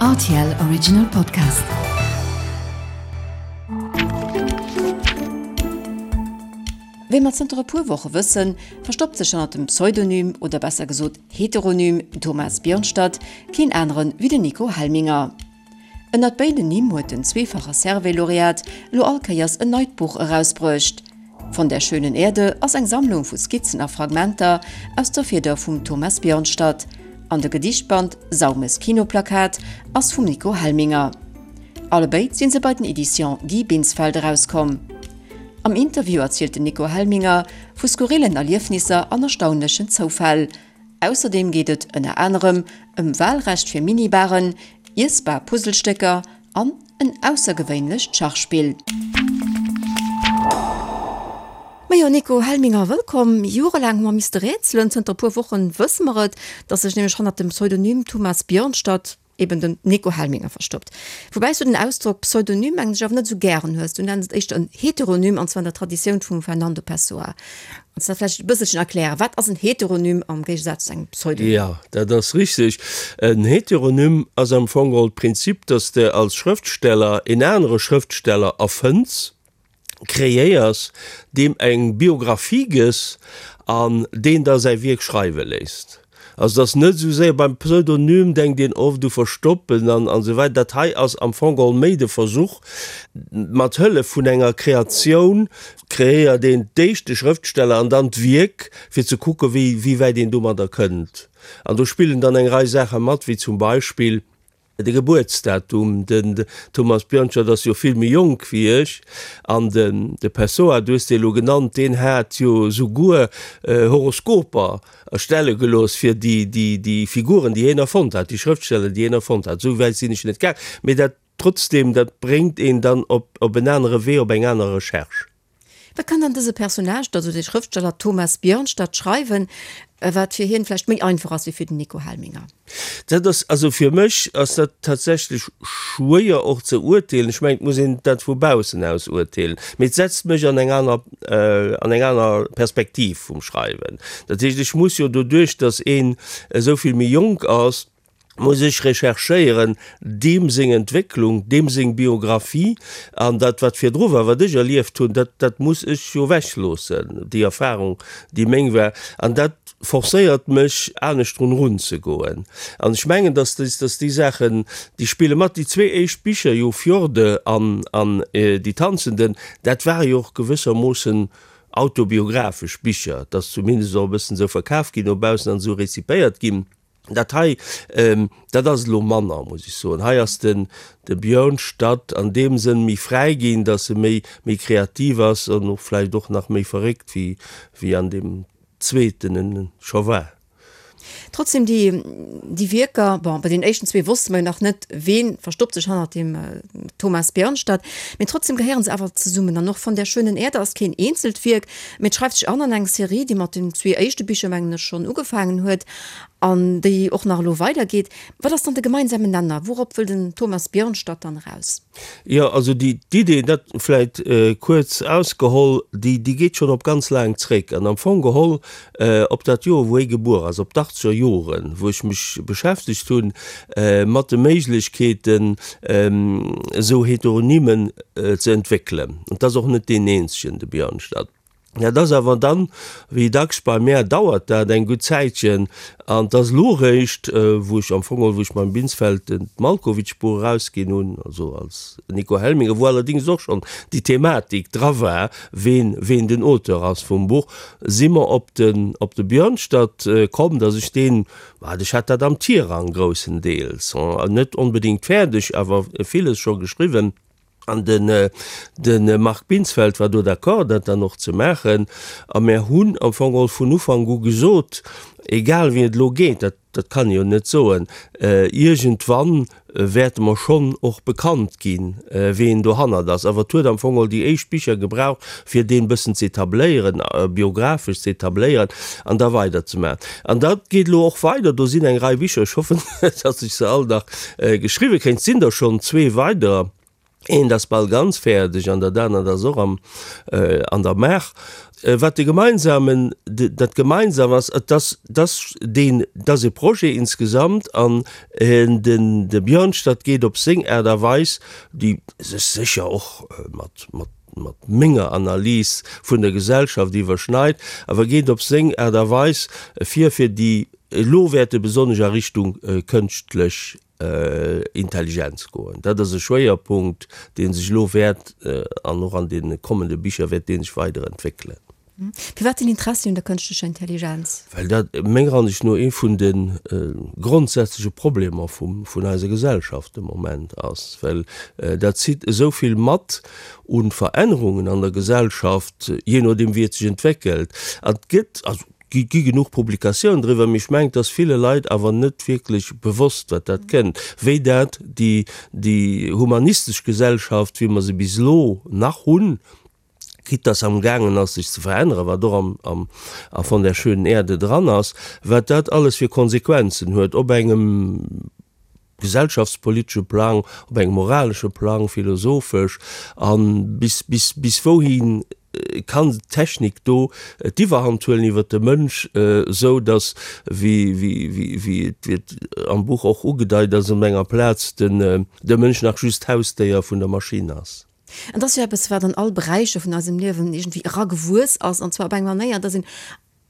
Rtl Original Podcast. Wéi mer zënter e puer Woche wëssen, verstoppt sech hannert dem Pseudonym, oder besser gesot Heteronym Thomas Björnstad keen aneren wéi den Nico Helminger. Ënnert béiden Nimm huet den zweefache Servais-Laureat elo all Kéiers en neit Buch erausbruecht. Von der schönen Erde ass eng Sammlung vu Skizzen a Fragmenter aus der Fieder vum Thomas Björnstad an de Gedichtband Saumes Kinoplakat ass vum Nico Helminger. Allebéid si se bei den Editions Guy Binsfeld erauskomm. Am Interview erzielt den Nico Helminger vu skurrillen Erliefnisser an erstaunlechen Zoufäll. Ausserdeem geet et ënner anerem ëm Walrecht fir Minibaren, iessbar Puzzlestécker an en aussergewéinlecht Schachspill. Majo Nico Helminger, wëllkomm. Jorelaang hu mer misste rätselen, zënter e puer Wochen wësse mer et, datt sech nämlech hannert dem Pseudonym Thomas Björnstad eben den Nico Helminger verstoppt. Woubäi s du den Ausdrock Pseudonym mengen ech awer net esou gären hues. Du nenns et éischter en Heteronym, an zwar an der Traditioun vum Fernando Pessoa. Kanns du dat vläicht e bësselchen erklären? Wat ass en Heteronym am Géigesaz zu engem Pseudonym? Jo, dat ass richteg. En Heteronym ass am Fong geholl d'Prinzip, dass de als Schrëftsteller en anere Schrëftsteller erfënns, kreéiers, deem eng Biographie gëss an deen da säi Wierk schreiwe léisst. Also et ass net esou séier, beim Pseudonym denkt een oft u Verstoppen an esou weider, dat hei ass am Fong geholl méi de Versuch, mat Hëllef vun enger Kreatioun kreéiert een d'éischt de Schrëftsteller an dann d'Wierk, fir ze kucke wéi wäit een domadder kënnt. An do spillen dann eng Rei Saache mat, wéi zum Beispill, De Gebuertsdatum, den Thomas Björnstad ass jo vill méi jonk wéi ech, an den de Pessoa, du hues dee lo genannt, deen hat jo souguer Horoskoper erstelle gelooss fir déi, déi, déi Figuren, déi hien erfonnt hat, déi Schrëftsteller, déi hien erfonnt hat. Esou wäit sinn ech net gaang, mee dat trotzdem, dat bréngt een dann op, op en anere Wee, op eng aner Recherche. Wat kann dann dëse Personnage, also de Schrëftsteller Thomas Björnstad schreiwen, wat fir hien vläicht méi einfach ass wéi fir den Nico Helminger? Dat ass, also fir mech ass dat tatsächlech schwéier och ze urteelen. Ech mengen, et muss een dat vu baussen aus urteelen, mee et setzt mech an eng aner, an eng aner Perspektiv vum Schreiwen. Dat heescht, ech muss jo doduerch, datt een esou vill méi jonk ass, muss ech recherchéieren, deem seng Entwécklung, deem seng Biographie an dat wat virdru war, wat ech erlieft hunn, dat dat muss ech jo ewechloossen, déi Erfahrung, déi meng war. An dat forcéiert mech, anescht drun erunzegoen. An ech mengen, dass déi, dass déi Saachen, déi spille mat. Déi zwee éischt Bicher jo, Fjorde an an Die Tanzenden, dat ware jo och gewëssermoossen autobiographesch Bicher. Et ass zumindest och e bëssen esou verkaf ginn no baussen an esou rezipéiert ginn. Dat hei, dat ass elo manner, muss ech soen. Hei ass den de Björnstad an deem Sënn méi fräi ginn, datt e méi méi kreativ ass an och vläicht och nach méi verréckt wéi wéi an deem zweeten en scho war. Trotzdem déi déi Wierker, bon, bei den éischten zwee wosste mer jo nach net, ween verstoppt sech hannert dem Thomas Björnstad, mee trotzdem gehéieren se awer zesummen. An och Von der schönen Erde ass keen eenzelt Wierk, mee et schreift sech an an eng Serie, déi mat den zwee éischte Bicher, mengen ech, schonn ugefaangen huet an déi och nach elo weidergeet. Wat ass dann de gemeinsamen Nenner? Wourop wëll den Thomas Björnstad dann eraus? Jo, also déi d'Idee, dat vläit kuerz ausgeholl, déi déi geet schonn op ganz laang zréck an am Fong geholl op dat Joer, wou hie gebuer ass, op d'achtzeger Joren, wou ech mech beschäftegt hunn mat de Méiglechkeeten, esou Heteronymen ze entwéckelen. An 't ass och net deen eenzegen, de Björnstad. Dat ass awer dann, wéi dacks bei mär, dauert dat eng gutt Zäitchen an 't ass elo eréischt, wou ech am Fong geholl, wou ech mam Binsfeld den d'Malkowitsch-Buch erausginn hunn, also als Nico Helminger, wou allerdéngs och schonn déi Thematik dra war, ween, ween den Auteur ass vum Buch, si mer op den, op de Björnstad komm, datt ech deen, wat ech hat dat am Tirang groussendeels, net onbedéngt fäerdeg, awer villes scho geschriwwen. An den de Marc Binsfeld war do d'accord, dat dann och ze maachen. A mär hunn am Fong geholl vun Ufank u gesot, egal wéi et elo geet, dat, dat kann ee jo net soen, iergendwann wäerte mer schonn och bekannt ginn, ween dohannert ass. Awer et huet am Fong geholl déi éischt Bicher gebraucht, fir deen e bëssen ze etabléieren, biographesch ze etabléieren an da weiderzemaachen. An dat geet elo och weider. Do sinn eng Rei Bicher, ech hoffen, datt ech se all nach geschriwwe kréien. Et sinn der schonn zwee weiderer. Eent ass bal ganz fäerdeg an dat anert ass och am, an der Maach. Wat de gemeinsamen, dat gemeinsam ass, et ass, dass deen, dass e Projet insgesamt an den, de Björnstad geet op seng Aart a Weis, déi sech sécher och mat, mat, mat menger Analys vun der Gesellschaft iwwerschneit, awer geet op seng Aart a Weis vir, fir déi elo wäerte besonnesch a Richtung kënschtlech Intelligenz goen. Dat ass e Schwéierpunkt, dee sech elo wäert an och an deene kommende Bicher wäert dee sech weider entwéckelen. Firwat den Interessi un der kënschtlecher Intelligenz? Well dat menger Ansicht no ee vun de grondsätzleche Problemer vun eiser Gesellschaft de Moment ass, well dat zitt esou vill mat u Verännerungen an der Gesellschaft, jee nodeem wéi et sech entwéckelt. An et gëtt, also Et gi genuch Publikatiounen driwwer, mee ech mengen, et ass ville Leit awer net wierklech bewosst, wat dat kënnt, wéi dat déi, déi humanistesch Gesellschaft, wéi mer se bis elo nach hunn, quitte dass se amgaangen ass, sech ze veränneren, wat och am, am, a Von der schönen Erde dran ass, wat dat alles fir Konsequenzen huet op engem gesellschaftspolitesche Plang, op engem moralesche Plang, philosophesch, a bis, bis, bis wouhi kann d'Technik do d'Iwwerhand huelen iwwer de Mënsch, esou datt, wéi, wéi, wéi, wéi et, wéi et am Buch och ugedeit ass op enger Plaz, den, de Mënsch nach just Hausdéier vun der Maschinn ass. An et ass jo eppes, wat an all Beräicher vun eisem Liewen iergendwéi eragewuess ass, an zwar op eng Manéier, datt een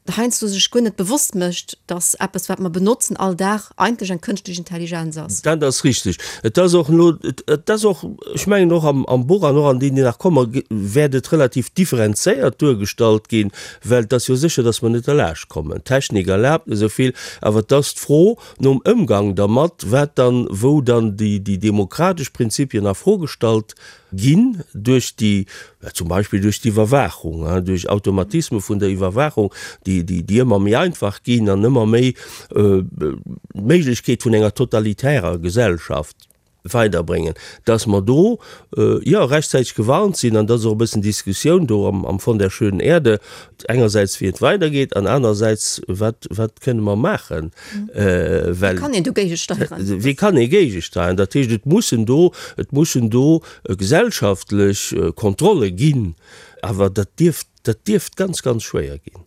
heiansdo sech guer net bewosst mécht, dass eppes, wat mer benotzen all Dag, eigentlech eng kënschtlech Intelligenz ass. Dat ass richteg. Et ass och elo, et ass och, ech mengen och am, am Buch an och an deenen, déi nach kommen, wäert et relativ differenzéiert duergestallt ginn, well et ass jo sécher, dass mer net derlaascht kommen. D'Technik erlaabt esou vill, awer et ass d'Fro nom Ëmgang dermat, wat dann, wou dann déi, déi demokratesch Prinzipien a Fro gestallt ginn duerch déi, zum Beispill duerch d'Iwwerwaachung, duerch Automatisme vun der Iwwerwaachung, déi, déi ëmmer méi einfach ginn an ëmmer méi d'Méiglechkeet vun enger totalitärer Gesellschaft weiderbréngen, dass mer do, jo, rechtzäiteg gewarnt sinn. An dat ass och e bëssen d'Diskussioun do am Von der schönen Erde, engersäits wéi et weidergeet an anerersäits wat, wat kënne mer maachen, well. Wéi kann een do géigesteieren? Wéi kann ee géigesteieren? Dat heescht, et mussen do, et mussen do gesellschaftlech Kontrolle ginn, awer dat dierft, dat dierft ganz, ganz schwéier ginn.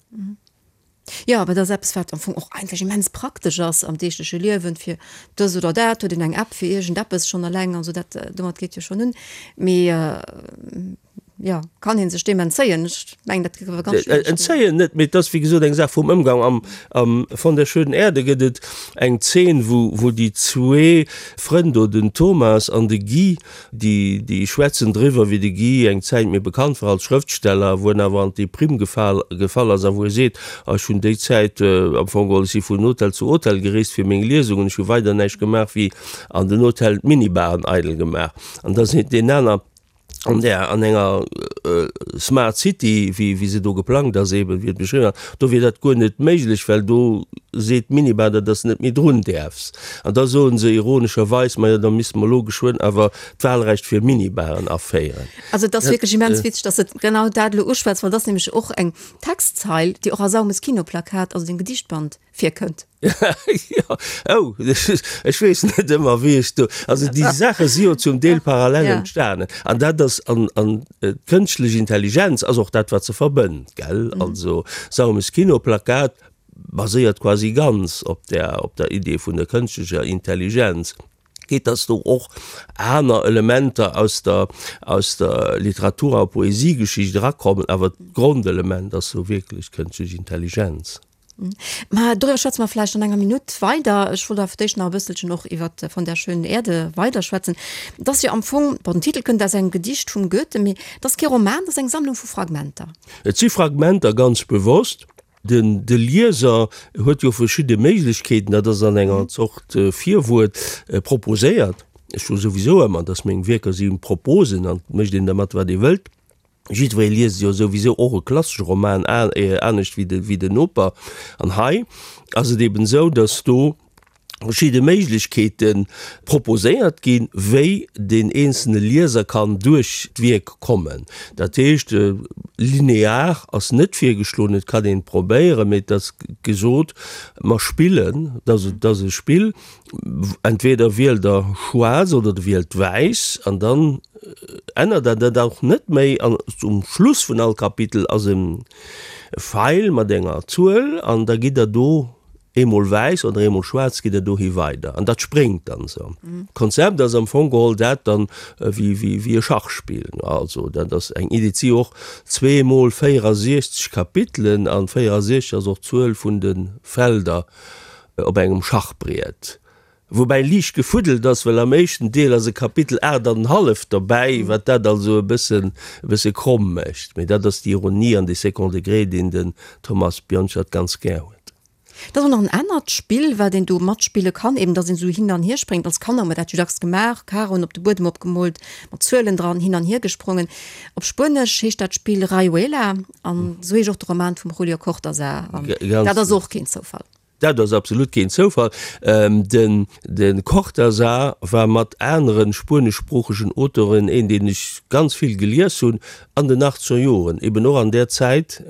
Jo, awer dat ass eppes, wat am Fong och eigentlech immens praktesch ass am deegleche Liewen, fir dës oder dat huet een eng App fir iergendeppes schonn eleng an esou, dat, domat geet jo schonn un. Mee jo, kann ee sech deem entzéien? Ech mengen, dat géif awer ganz schwiereg ginn. Entzéien net, mee et ass wéi gesot eng Saach vum Ëmgang. Am, am Von der schönen Erde gëtt et eng Zeen, wou, wou déi zwee Frënn do, den Thomas an de Guy, déi, déi schwätzen driwwer, wéi de Guy eng Zäit méi bekannt war als Schrëftsteller, wou en awer an d'Deprimm gefal, gefall ass a wou e seet, Ah, ech hunn déi Zäit am Fong geholl, ech si vun Hotel zu Hotel gereest fir meng Liesungen, ech hu weider näischt gemaach wéi an den Hotellen d'Minibaren eidel gemaach. An da seet deen aner, an där an enger Smart City, wéi wéi se do geplangt ass eben, wéi et beschriwwen ass, do wier dat guer net méiglech, well do seet d'Minibar, datt s net méi drun däerfs. An da soen se ironescherweis, majo da misste mer elo geschwënn awer d'Wahlrecht fir Minibaren aféieren. Also et ass wierklech immens witzeg, datt s de genau dat elo uschwätz, well et ass nämlech och eng Textzeil, déi och a Saumes Kinoplakat, also dem Gedichtband, virkënnt. Jo, oh, ech weess net ëmmer, wéi ech do, also déi Saache si jo zum Deel parallel entstanen. An dat ass, an, an d'kënschtlech Intelligenz ass och dat, wat se verbënnt, gell? Also Saumes Kinoplakat baséiert quasi ganz op der, op der Idee vun der kënschtlecher Intelligenz. Geet, dass do och aner Elementer aus der, aus der Literatur a Poesiegeschicht erakommen, awer d'Grondelement ass sou wierklech d'kënschtlech Intelligenz. Mä doriwwer schwätze mer vläicht an enger Minutt weider. Ech wollt awer fir d'éischt nach e bësselchen och iwwer Von der schönen Erde weiderschwätzen. Et ass jo am Fong, bon, den Titel kënnt aus engem Gedicht vum Goethe, mee et ass kee Roman, et ass eng Sammlung vu Fragmenter. Et si Fragmenter, ganz bewosst. Den, de Lieser huet jo verschidde Méiglechkeeten, dat ass an enger Zort Virwuert proposéiert. Ech soe souwisou ëmmer, dass meng Wierker si Proposen an et mécht een dermat, wat ee wëllt. Jiddweree liest jo souwisou och e klassesche Roman anescht wéi de, wéi den Noper. An hei ass et eben esou, datt do. Verschidde Méiglechkeete proposéiert ginn, wéi deen eenzelne Lieser kann duerch d'Wierk kommen. Dat heescht, linear ass net virgeschloen, et kann een et probéieren, mee et ass gesot, mer spillen, et ass e Spill, entweder wielt der schwaarz oder der wielt wäiss an dann ännert der dat och net méi an um Schluss vun all Kapitel ass e Feil mat enger Zuel an da gitt der do Eemol wäiss oder eemol schwaarz geet et dohi weider an dat spréngt dann esou. D'Konzept ass am Fong geholl dat dann wéi wéi e Schachspill. Also dat ass eng Idee. Et si och zweemol 64 Kapitelen an 64 ass och d'Zuel vun de Felder op engem Schachbriet. Woubäi liicht gefuddelt ass, well am éischten Deel ass e Kapitel 8 an en halleft derbäi, wat dat also e bëssen e bësse kromm mécht. Mee dat ass déi Ironie an dee Second Degré, deen den Thomas Bjornstad ganz gär huet. Et ass och nach en anert Spill, wat een do matspille kann, eben dass een esou hin an hier spréngt. Als Kanner hu mer dat jo dacks gemaach, Karoen op de Buedem opgemoolt, mat Zuelen dran, hin an hier gesprongen. Op Spuenesch heescht dat Spill Rayuela an esou heescht och de Roman vum Julio Cortázar. An dat ass och keen Zoufall. Dat ass absolut keen Zoufall. Den Cortázar war mat anere spueneschsproochegen Auteuren een, deen ech ganz vill gelies hunn an den achtzeger Joren, eben och an där Zäit,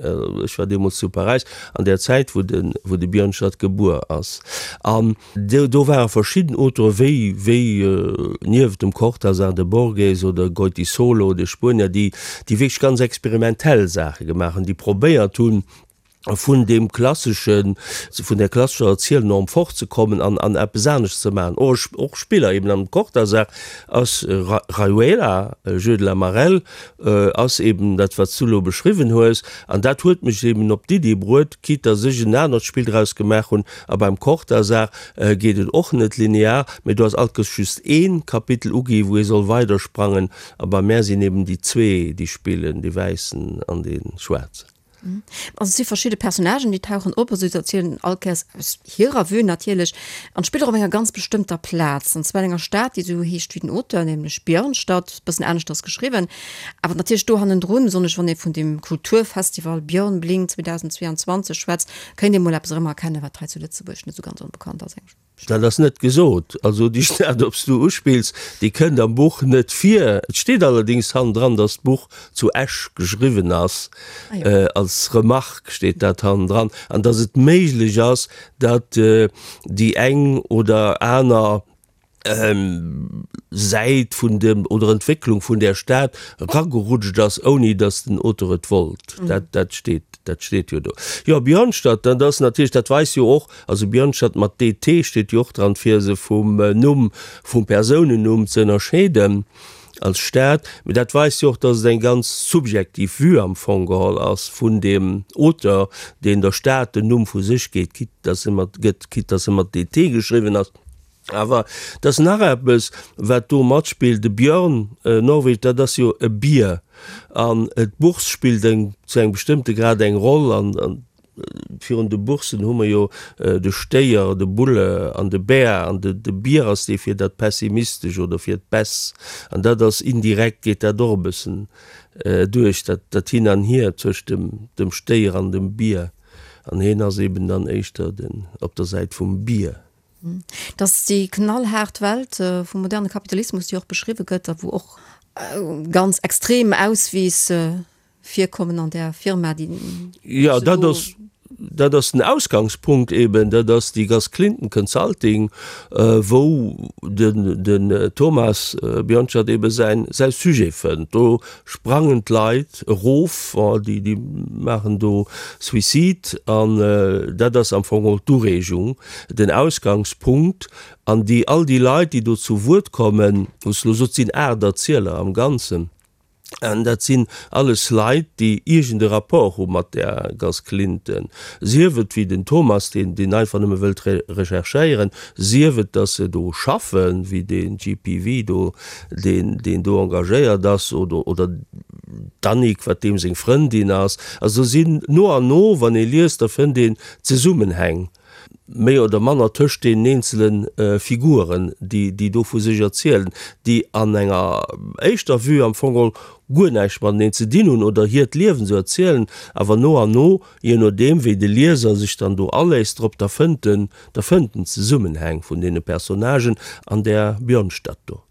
ech war deemools zu Paräis, an där Zäit, wou de wou de Björnstad gebuer ass. An do ware verschidden Auteure wéi wéi nieft dem Cortázar de Borges oder Goytisolo, de Spuenier, déi déi wierklech ganz experimentell Saache gemaach hunn, déi probéiert hunn, vun deem klasseschen, vun där klassescher Erzielnorm fortzekommen an an eppes anescht ze maachen. Och och Spiller eben am Cortázar ass Rayuela, Jeu de la marelle, ass eben dat wat s du elo beschriwwen hues. An dat huet mech eben op d'Iddi bruet, quitte dass ech en anert Spill draus gemaach hunn. A beim Cortázar geet et och net linear, mee do ass alt just ee Kapitel ugi wou ee soll weidersprangen. A bei mär sinn eben déi zwee déi spillen, dee Wäissen an dee Schwaarzen. Also et si verschidde Personnagen, déi tauchen op, also se erzielen all Kéiers aus hirer Vue natierlech an spillt och op enger ganz bestëmmter Plaz, an zwar an enger Stad, déi esou heescht wéi den Auteur, nämlech Björnstad, e bëssen aneschters geschriwwen, awer natierlech do hannendrun, besonnesch wann ee vun dem Kulturfestival Björn Blink 2022 schwätzt, kéint ee mol eppes erëmerkennen, wat hei zu Lëtzebuerg net esou ganz onbekannt ass. Dat ass net gesot. Also déi Stad, op s du uspills, déi kënnt am Buch net vir. Et steet allerdéngs hannendran, datt d'Buch zu Esch geschriwwen ass. Als Remarque steet dat hannendran. An datt et méiglech ass, datt déi eng oder aner Säit vun dem oder Entwécklung vun där Stad eragerutscht ass, ouni datt den Auteur et wollt. Dat, dat steet, dat steet jo do. Jo, Björnstad, dat ass natierlech, dat weist jo och, Also Björnstad mat DT steet jo och dran, fir se vum Numm, vum Persounennumm ze ënnerscheeden als Stad. Mee dat weist jo och, datt et eng ganz subjektiv Vue am Fong geholl ass vun deem Auteur, deen der Stad den Numm vu sech geet, quitte datt se mat gëtt, quitte datt se mat DT geschriwwen ass. Awer et ass nach eppes, wat do matspillt, De Björn, Norwegen, dat ass jo e Bier an d'Bourse spillt eng zu engem bestëmmte Grad eng Roll an Virun de Boursen hu mer jo de Stéier, de Bulle an de Bär. An de Bier ass dee fir dat Pessimistesch oder fir d'Baisse. An dat ass indirekt, geet dat och e bëssen duerch, dat Hin an Hier tëscht dem Stéier an dem Bier. An hien ass eben dann éischter den op der Säit vum Bier. Dass déi knallhaart Welt vum moderne Kapitalismus, déi och beschriwwe gëtt a wou och ganz extrem Auswiiss virkommen an där Firma, déi Jo, dat ass, dat ass den Ausgangspunkt eben, dat ass déi Gas Clinton Consulting, wou den, den Thomas Björnstad ebe säin, säi Sujet fënnt. Do sprangen d'Leit erof, déi, déi maachen do Suicide an dat ass am Fong och d'Ureegung, den Ausgangspunkt. An déi, all déi Leit, déi do zu Wuert kommen, wou s de elo sot, sinn 8 Erzieler am Ganzen. An dat sinn alles Leit, déi iergend e Rapport hu mat där Gas Clinton, sief et wéi den Thomas, deen deen einfach nëmme wëllt recherchéieren, sief et, datt se do schaffen, wéi dee GPV do, deen deen do engagéiert ass, oder oder d'Annick, wat deem seng Frëndin ass. Also do sinn no an no, wann ee liest, da fënnt een Zesummenhäng. méi oder manner tëscht deenen eenzele Figuren, déi, déi do vu sech erzielen, déi an enger éischter Vue am Fong geholl guer näischt mateneen ze dinn hunn oder hiert Liewen esou erzielen, awer no an no, je nodeem wéi de Lieser sech dann do aléisst drop, da fënnt en, da fënnt en d'Zesummenhäng vun deene Personnagen an där Björnstad do.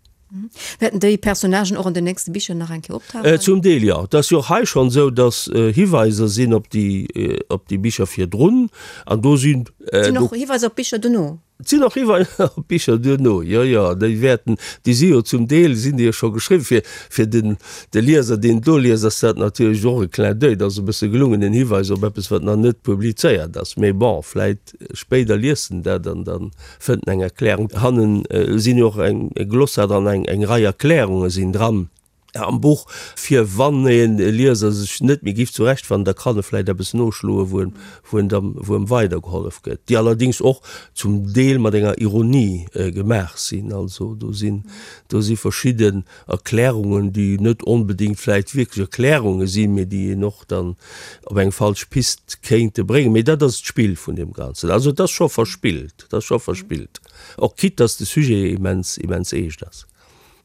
Wäerten déi Personnagen och an den nächste Bicher nach eng Kéier optauchen? Zum Deel, jo. Et ass jo och hei schonn esou, datt Hiweiser sinn op déi, op déi Bicher virdrun an do sinn. Et sinn och Hiweiser op Bicher dono? Et sinn och Hiweiser op Bicher duerno, jo, jo. Déi wäerten, déi si jo zum Deel sinn déi jo scho geschriwwen. Fir, fir den, de Lieser, deen et do liest, ass dat natierlech och e Clin d'oeil, dat ass e bësse gelungen, en Hiweis op eppes, wat nach net publizéiert ass. Mee bon, vläit spéider liest en dat an dann fënnt en eng Erklärung. Hannen sinn jo och eng Glossar dran, eng eng Rei Erklärunge sinn dran am Buch, fir wann e Lieser sech net méi giff zurechtfannen, da kann e vläit eppes noschloen, wou en wou en dann wou em weidergehollef gëtt, déi allerdéngs och zum Deel mat enger Ironie gemaach sinn. Also do sinn do si verschidden Erklärungen, déi net onbedéngt vläit wierklech Erklärunge sinn, mee déi een och dann op eng falsch Pist kéinte bréngen. Mee dat ass d'Spill vun deem Ganzen. Also et ass scho verspillt, et ass scho verspillt, och quitte dass de Sujet immens, immens eescht ass.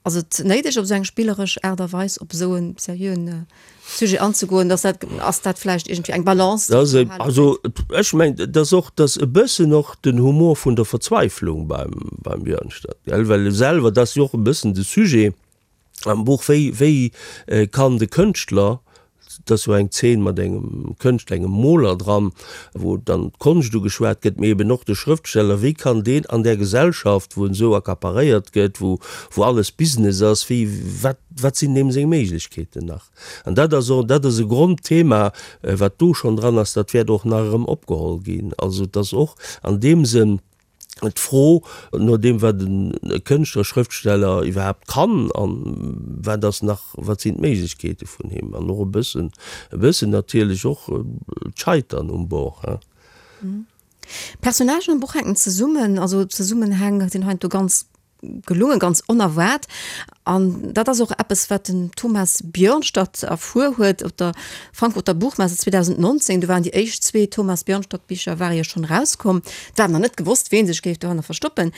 Ass et néideg, op esou eng spilleresch Aart a Weis op esou e seriöen Sujet anzegoen? Ass dat, ass dat vläicht iergendwéi eng Balance, déi ze behalen ass? Also ech mengen, et ass och, et ass e bëssen och den Humor vun der Verzweiflung beim, beim Björnstad, gell, well e selwer, dat ass jo och e bëssen de Sujet am Buch, wéi, wéi kann de Kënschtler, et ass jo eng Zeen mat engem Kënschtler, engem Moler dran, wou dann d'Konscht ugeschwat gëtt, mee eben och de Schrëftsteller, wéi kann deen an där Gesellschaft, wou en esou accaparéiert gëtt, wou, wou alles Business ass, wéi, wat, wat sinn deem seng Méiglechkeeten nach? An dat ass och, dat ass e Grondthema, wat do schonn dran ass, dat wäert och nach erëm opgeholl ginn. Also et ass och an deem Sënn d'Fro no deem, wat e Kënschtler, Schrëftsteller iwwerhaapt kann an wat ass nach, wat sinn d'Méiglechkeete vun him an och e bëssen, e bëssen natierlech och d'Scheitern um Bord, hein. D'Personnagen am Buch hänken zesummen, also d'Zesummenhäng sinn heiansdo ganz gelungen, ganz onerwaart. An dat ass och eppes, wat den Thomas Björnstad erfuer huet op der Frankfurter Buchmesse 2019. Do waren déi éischt zwee Thomas Björnstad-Bicher ware jo schonn erauskomm. Et war nach net gewosst, ween sech géif dohanner verstoppen.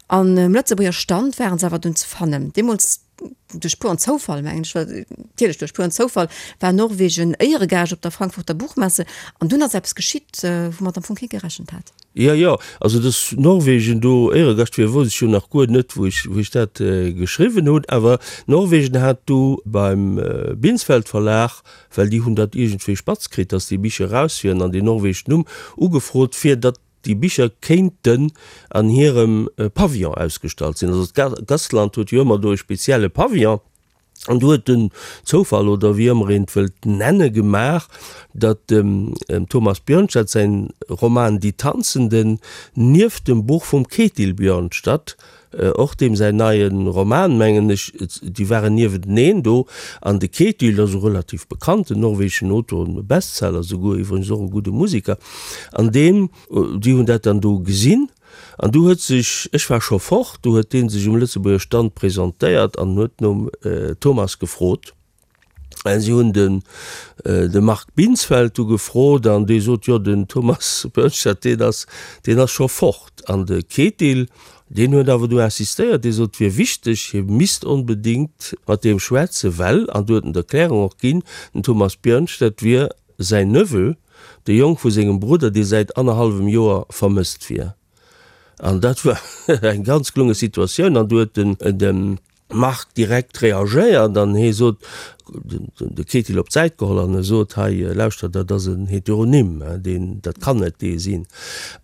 An um Lëtzebuerger Stand waren se awer dunn ze fannen. Deemools duerch puren Zoufall, mengen ech, natierlech duerch puren Zoufall, war Norwegen Éieregaascht op der Frankfurter Buchmesse. An dunn ass eppes geschitt, woumat am Fong kee gerechent hat. Jo, jo, also dass Norwegen do Éieregascht wier, wousst ech jo nach guer net, wou ech, wou ech dat geschriwwen hunn. Awer Norwegen hat du beim Binsfeld Verlag, well déi hunn dat iergendwéi spatz kritt, dass déi Bicher eraus wieren, an deen norwegeschen Numm ugefrot, fir datt déi Bicher kéinten an hirem Pavillon ausgestallt sinn. Also d'Gastland huet jo ëmmer do e spezielle Pavillon. An do huet den Zoufall, oder wéi ëmmer een et wëllt nenne, gemaach, datt dem Thomas Bjørnstad säin Roman Die Tanzenden nieft dem Buch vum Ketil Bjørnstad, och deem säin neie Roman, mengen ech, déi waren niewenteneen do. An de Ketil ass e relativ bekannten norwegeschen Autor, e Bestseller souguer, iwwregens och e gudde Musiker, an deen, déi hunn dat dann do gesinn. An du huet sech, ech war scho fort, du huet dee sech um Lëtzebuerger Stand presentéiert an huet nom Thomas gefrot. A si hunn den de Marc Binsfeld du gefrot an dee sot, jo den Thomas Bernstein, deen ass, deen ass scho fort. An de Ketil, deen huet awer du insistéiert, dee sot, et wier wichteg, hie misst onbedéngt mat deem schwätzen, well, an du huet en d'Erklärung och ginn, den Thomas Björnstad wier Säin Neveu, de Jong vu sengem Brudder, dee säit annerhallwem Joer vermësst wier. An dat war eng ganz gelunge Situatioun. An du huet den de Marc direkt reagéiert an hie sot, de Ketil op d'Säit geholl an e sot, hei lauschter, dat ass en Heteronym, deen, dat kann net dee sinn.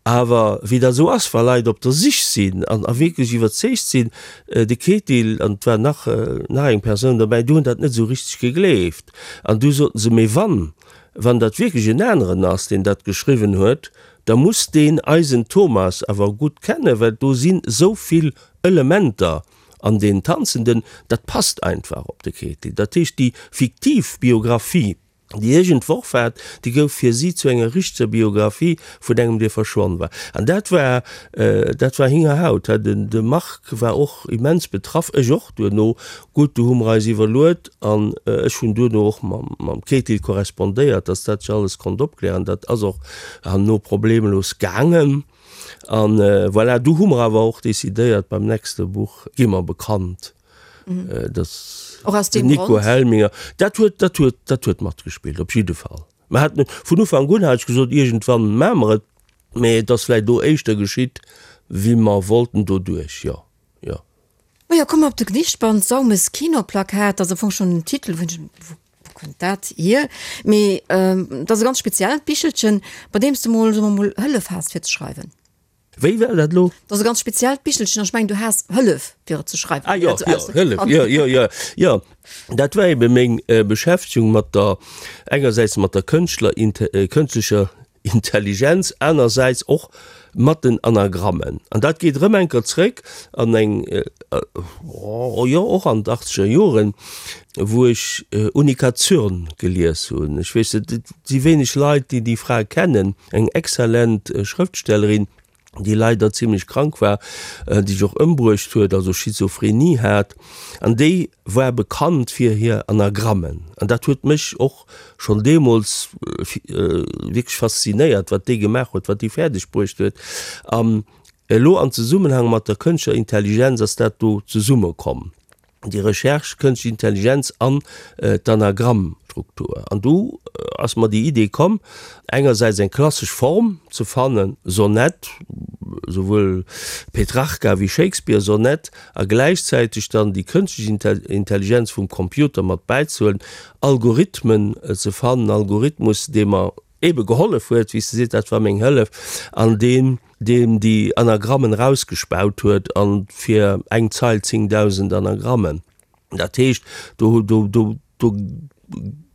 Awer wéi dat esou ass, wa Leit op der Sich sinn an a wierklech iwwerzeegt sinn, de Ketil an et war nach nach eng Persoun dobäi, déi hunn dat net esou richteg gegleeft. An du soten se, Mee wann, wann dat wierklech en aneren ass, deen dat geschriwwen huet, da muss deen eisen Thomas awer gutt kennen, well do sinn esou vill Elementer an deen Tanzenden, dat passt einfach op de Ketil. Dat heescht, déi fiktiv Biographie, déi ech entworf hat, déi gouf fir si zu enger richteger Biographie vun engem, dee verschwonn war. An dat war, dat war Hingerhaut. De Marc war och immens betraff, ech och duerno. Gutt, du hu mer eis iwwerluet an ech hunn duerno och mam Ketil korrespondéiert, dass dat sech alles konnt opklären. Dat ass och herno problemlos gaangen. An voilà, du hu mer awer och decidéiert, beim nächste Buch gi mer bekannt, dass den Nico Helminger, dat huet, dat huet, dat huet matgespillt, op jidde Fall. Mer haten, vun Ufank un hat ech gesot, iergendwann maache mer et, mee et ass vläicht do éischter geschitt, wéi mer wollten doduerch, jo, jo. Majo, komme mer op de Gedichtband Saumes Kinoplakat, dat ass am Fong schonn den Titel, wou ech, wou kënnt dat hier? Mee dat ass e ganz speziellt Bichelchen, bei deem s de mol, soe mer mol, Hëllef has fir ze schreiwen. Wéi war dat elo? Dat ass e ganz speziellt Bichelchen an ech mengen, du has Hëllef fir et ze schreiwen. Ah jo, jo, Hëllef, jo, jo, jo, jo. Dat war ebe meng Beschäftegung mat der, engersäits mat der Kënschtler, kënschtlecher Intelligenz, anersäits och mat den Anagrammen. An dat geet erëm eng Kéier zréck an eng, jo, och an d'Achtzeger Joren, wou ech Unica Zürn gelies hunn. Ech weess net, et si wéineg Leit, déi déi Fra kennen, eng exzellent Schrëftstellerin, déi leider zimlech krank war, déi sech och ëmbruecht huet, also Schizophrenie hat. An déi war bekannt fir hir Anagrammen. An dat huet mech och schonn deemools wierklech faszinéiert, wat déi gemaach huet, wat déi fäerdeg bruecht huet. An elo an Zesummenhang mat der kënschtlecher Intelligenz ass dat do zesummekomm. déi Recherche Kënschtlech Intelligenz an d'Anagrammstruktur. An du ass mer déi Idee komm, engersäits eng klassesch Form ze fannen, Sonett, souwuel Petrarca wéi Shakespeare Sonett, a gläichzäiteg dann déi kënschtlech Intelligenz vum Computer mat bäizehuelen, Algorithmen ze fannen, Algorithmus, dee mer ebe gehollef huet, wéi s de sees, dat war meng Hëllef, an deen deen déi Anagrammen erausgespaut huet, an fir eng Zeil 10.000 Anagrammen. Dat heescht, do, do, do, do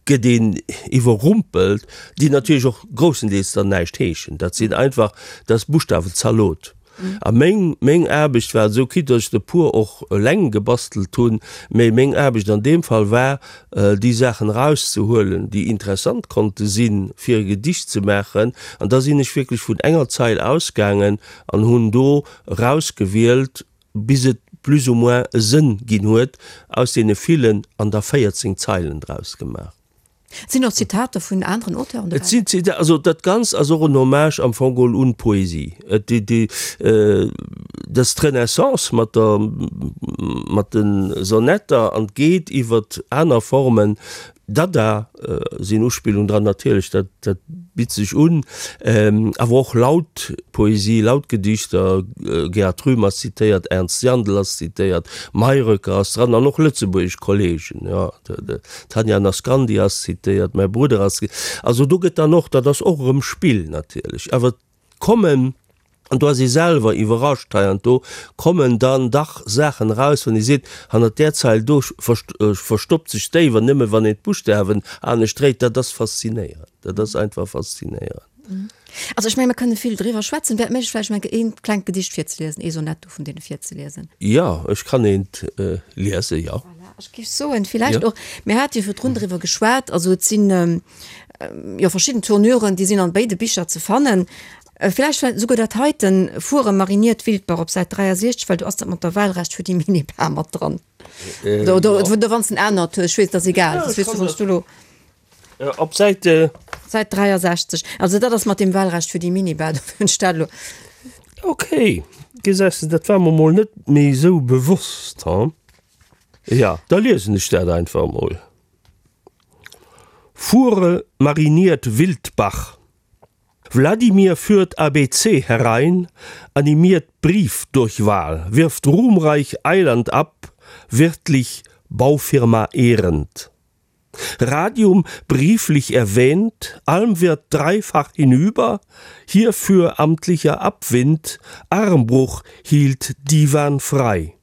gëtt een iwwerrumpelt, déi natierlech och groussendeels dann näischt heeschen. Dat sinn einfach, dat ass Buschtawe-Zalot. A meng, meng Aarbecht war esou, quitte datt ech der e puer och eleng gebastelt hunn, mä meng Aarbecht an deem Fall war, déi Saachen erauszehuelen, déi interessant konnte sinn, fir e Gedicht ze maachen. An da sinn ech wierklech vun enger Zeil ausgaangen an hunn do erausgewielt, bis et plus ou moins e Sënn ginn huet, aus deene villen, an da 14 Zeilen draus gemaach. Et sinn och Zitater vun aneren Auteuren dobäi. Et sinn Zitater, also dat Ganzt ass och en Hommage am Fong geholl un d'Poesie. Et déi, déi, dat ass d'Renaissance mat der, mat de Sonetter an geet iwwert aner Formen. Dada sinn Uspillungen dran, natierlech, dat, dat bitt sech un. Awer och laut Poesie, laut Gedichter, Gerhard Rühm ass zitéiert, Ernst Jandl ass zitéiert, Mayröcker ass dran an och lëtzebuergesch Kollegen, jo. D'Tanja Naskandy ass zitéiert, mäi Brudder ass, also do gëtt dann och, dat ass och erëm Spill natierlech, awer et kommen, an do ass ee selwer iwwerrascht heiansdo, kommen dann dach Saachen eraus, wann ee seet, hannert där Zeil do verstoppt sech déi, wann nëmme wann een d'Buschtawen anescht dréit, dat ass faszinéierend, dat ass einfach faszinéierend. Also ech menge mer kënne vill driwwer schwätzen. Wär et méiglech vläicht eng eent klengt Gedicht virzeliesen, ee Sonett do vun deene virzeliesen? Jo, ech kann eent liesen, jo. Voilà, ech géif soen, villäicht och, mir hate jo virdrun driwwer geschwat, also et sinn jo verschidden Tournuren, déi sinn an béide Bicher ze fannen. Villäicht war esouguer dat heiten, Fuere mariniert Wildbach op Säit 63, well do ass dat mat der Wahlrecht fir déi Minibar mat dran. Oder, oder, oder wann s en anert hues, ech weess, et ass egal, dat weess du, wann s du elo. Op Säit. Säit 63. Also dat ass mat deem Wahlrecht fir déi Minibar, do hunn ech dat elo. Ok, gesäis de, dat war mer mol net méi esou bewosst, ha? Ja, da liesen ech dat einfach mol. Fuhre mariniert Wildbach. Wladimir führt ABC herein, animiert Briefdurchwahl, wirft ruhmreich Eiland ab, wirtlich Baufirma ehrend. Radium brieflich erwähnt, Almwirt dreifach hinüber, hierfür amtlicher Abwind, Armbruch hielt Diwan frei.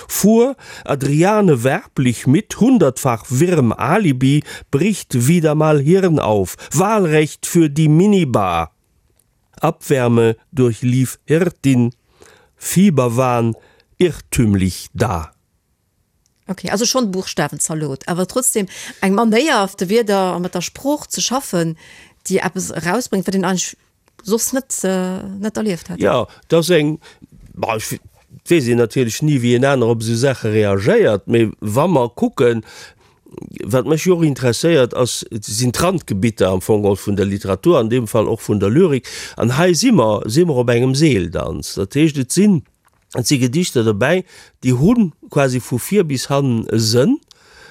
Fuhr Adriane werblich mit hundertfach wirrem Alibi, bricht wieder mal Hirn auf, Wahlrecht für die Minibar. Abwärme durchlief Hirtin, Fieberwahn irrtümlich da. Ok, also schonn Buchstawenzalot, awer trotzdem eng Manéier de Wierder a mat der Sprooch ze schaffen, déi eppes erausbréngt, wat een eigentlech soss net net erlieft hätt. Jo, et ass eng, bon, ech weess een natierlech ni wéi en aner op esou Saache reagéiert, mee wa mer kucken. Wat mech jo och interesséiert ass, sinn d'Randgebitter am Fong geholl vun der Literatur, an deem Fall och vun der Lyrik. An hei si mer, si mer op engem Seeldanz. Dat heescht, et sinn, et si Gedichter dobäi, déi hu quasi vu vir bis hannen e Sënn,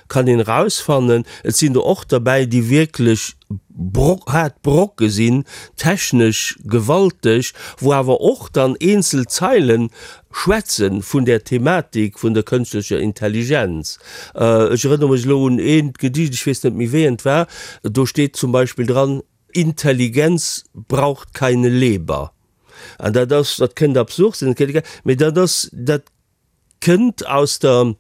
kann een erausfannen. Et sinn der och derbäi, déi wierklech Bro haart Brocke sinn, technesch gewalteg, wou awer och dann eenzel Zeilen schwätze vun där Thematik vun der kënschtlecher Intelligenz. Ech erënnere mech elo un eent Gedicht, ech weess net méi wéi eent war, do steet zum Beispill dran, Intelligenz braucht keine Leber. An dat ass, dat kënnt absurd sinn, mee dat ass, dat kënnt aus der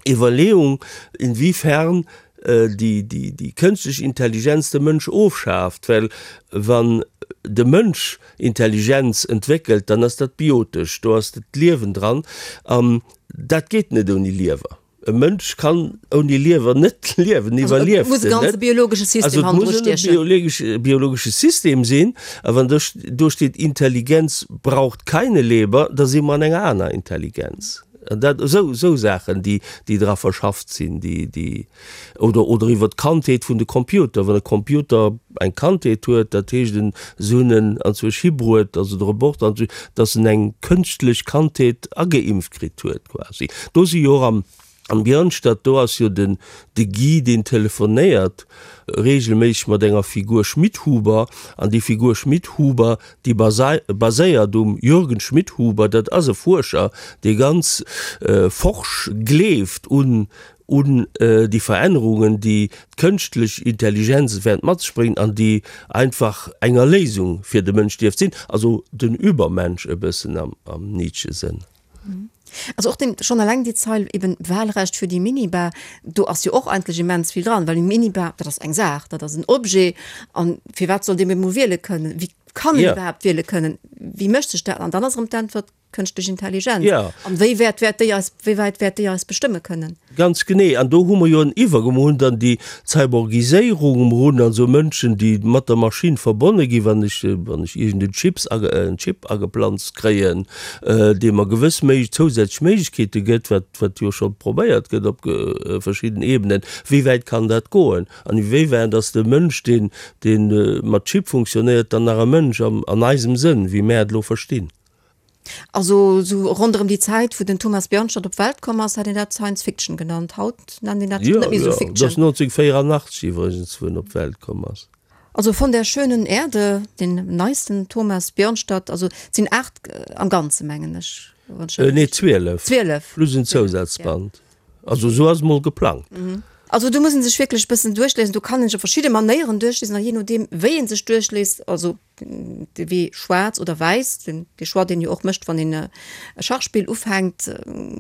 Iwwerleeung, inwiefern déi kënschtlech Intelligenz de Mënsch ofschaaft, well wann de Mënsch Intelligenz entwéckelt, dann ass dat biotesch, do ass d'Liewen dran an dat geet net ouni Liewer. E Mënsch kann ouni Liewer net liewen, iwwerlieft en net. Also et muss e biologesche System sinn. A wann do steet Intelligenz braucht keine Leber, da si mer an enger aner Intelligenz. An dat, esou, esou Saachen, déi, déi dra verschafft sinn, déi, déi, oder, oder iwwer d'Kandheet vun de Computer. Wann e Computer eng Kandheet huet, dat heescht en, se hunn en anzwousch hibruet, also de Roboter anzwousch, datt en eng kënschtlech Kandheet ageimpft kritt huet quasi. Do si jo och am, am Björnstad, do ass jo den, de Guy, deen telefonéiert regelméisseg mat enger Figur Schmidhuber, an déi Figur Schmidhuber, déi baséiert um Jürgen Schmidhuber, dat ass e Fuerscher, dee ganz forsch gleeft un un déi Verännerungen, déi d'kënschtlech Intelligenz wäert mat sech bréngen an déi einfach eng Erléisung fir de Mënsch dierft sinn, also den Übermensch e bëssen am Nietzsche-Sënn. Also och den, schonn eleng déi Zeil eben Wahlrecht für die Minibar, do ass jo och eigentlech immens vill dran, well eng Minibar, dat ass eng Saach, dat ass en Objet an firwat soll dee emol wiele kënnen? Wéi kann en iwwerhaapt wiele kënnen? Wéi mécht sech dat? An dann ass erëm d'Äntwert, kënschtlech Intelligenz. An wéi wäert wäert déi eis, wéi wäit wäert déi eis bestëmme kënnen? Ganz genee. An do hu mer jo en Iwwergang. Mer hunn dann déi Cyborgiséierung, mer hunn also Mënschen, déi mat der Maschinn verbonne ginn, wann ech, wann ech iergend en Chips, en Chip ageplanzt kréien, dee mer gewëss méi zousätzlech Méiglechkeete gëtt, wat, wat jo scho probéiert gëtt op verschidden Ebenen. Wéi wäit kann dat goen? An iwéiwäit ass de Mënsch, deen, dee mat Chip funktionéiert, dann nach e Mënsch am, an eisem Sënn, wéi mär et elo verstinn? Also sou ronderëm déi Zäit, wou den Thomas Björnstad op d'Welt komm ass, hätt een dat Science Fiction genannt. Haut nennt een dat net méi sou Fiction. Jo, dat ass 1984 iwwregens, wou en op d'Welt komm ass. Also Von der schönen Erde, den neisten Thomas Björnstad, also et sinn 8 am Ganze mengen ech. Nee, 12. 12. Plus en Zousazband. Also esou ass et mol geplangt. Also do muss een sech wierklech e bëssen duerchliesen. Do kann een sech op verschidde Manéieren duerchliesen a jee nodeem wéi een sech duerchliest, also de Wee schwaarz oder wäiss, den dee Choix deen jo och mécht wann een e Schachspill ufänkt,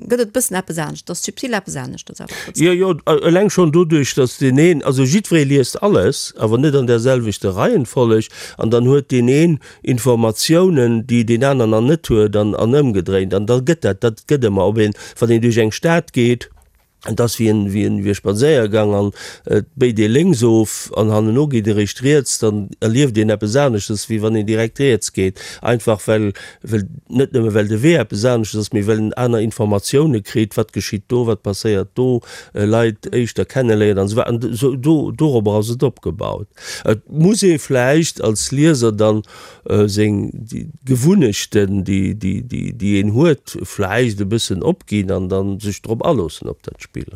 gëtt et e bëssen eppes anescht, et ass subtil eppes aneschters awer trotzdem. Jo, jo, eleng schonn doduerch, datt deen een, also jiddweree liest alles, awer net an där selwechter Reihenfolleg, an dann huet deen een Informatiounen, déi deen aner nach net huet, an an ëmgedréint, an da gëtt dat, dat gëtt ëmmer, ob een, wann een duerch eng Stad geet, Et ass wéi en, wéi en, wéi e Spadséiergang an et béit ee lénks of an hanneno geet ee réischt riets, dann erlieft een eppes aneschtes, wéi wann een direkt riets geet. Einfach well, well, net nëmme well de Wee eppes aneschtes ass, mee well en aner Informatioune kritt, wat geschitt do, wat passéiert do, Leit éischter kenneléiert an esou weider. An esou do, dorobber ass et opgebaut. Et muss ee vläicht als Lieser dann seng Gewunnechten, déi een huet, vläicht e bëssen opginn an dann sech drop aloossen op dat Spill.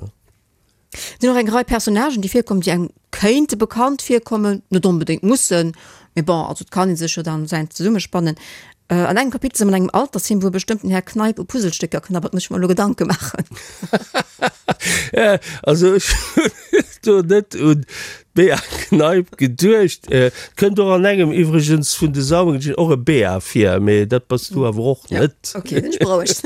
Et sinn och eng Rei Personnagen, déi virkommen, déi engem kéinte bekannt virkommen, net onbedéngt mussen, mee bon, also et kann ee sech jo dann säin zesummespannen. An engem Kapitel si mer an engem Altersheem, wou e bestëmmten Här Kneip u Puzzlestécker knabbert, muss ech mer elo Gedanke maachen. Also ech hunn do net un d'Bea Kneip geduecht. Et kënnt och an engem iwwregens vun de Saumengedien och e Bea vir, mee dat bass du awer och net. Ok, sinn ech berouegt.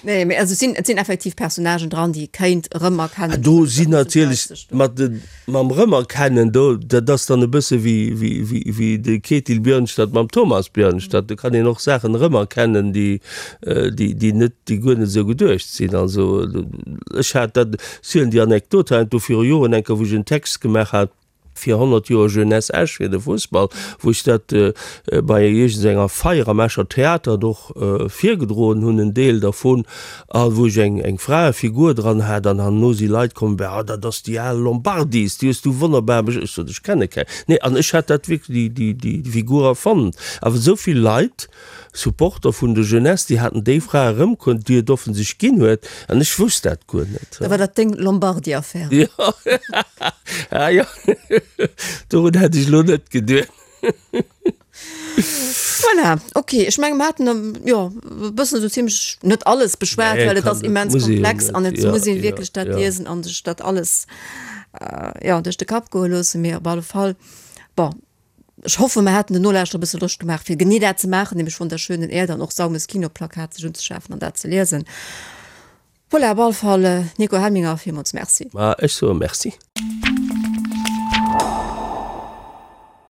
Nee, mee also et sinn, et sinn effektiv Personnagen dran, déi ee kéint erëmerkennen. Do sinn natierlech mat de, mam Rëmerkennen, do, dat ass dann e bësse wéi, wéi, wéi, wéi de Ketil Björnstad mam Thomas Björnstad. Do kann een och Saachen erëmerkennen, déi, déi, déi net, déi guer net esou geduecht sinn. Also ech hat dat, ech zielen déi Anekdot heiansdo viru Joren eng Kéier, wou ech en Text gemaach hat. Fir 100 Joer Jeunesse Esch, fir de Fussball, wou ech dat bei iergendenger Feier am Escher Theater och virgedroen hunn, en Deel dervun, a wou ech eng eng Fraefigur dran hat, an herno si Leit komm, Bah, dat ass déi al Lombardis, déi hues du wonnerbar besch. Ech sot, ech kenne keng. Nee, an ech hat dat wierklech, déi déi Figur erfonnt. Awer esou vill Leit Supporter vun der Jeunesse, déi haten déi Fra erëmkonnt, déi et offen sech ginn huet, an ech wousst dat guer net. Da war dat deng Lombardi-Affär. Jo, ah jo, dorun hätt ech elo net geduet. Voilà, ok, ech menge mer haten jo e bëssen esou zimlech net alles beschwat, well et ass immens komplex an et muss ee wierklech dat liesen an sech dat alles jo duerch de Kapp goe loossen, mee op alle Fall, bon. Ech hoffen, mer haten den Nolauschterer e bësse Loscht gemaach, fir genee dat ze maachen, nämlech Von der schönen Erde an och Saumes Kinoplakat sech unzeschafen an dat ze liesen. Voilà, op alle Fall, Nico Helminger, villmools Merci. Ma ech soe Merci.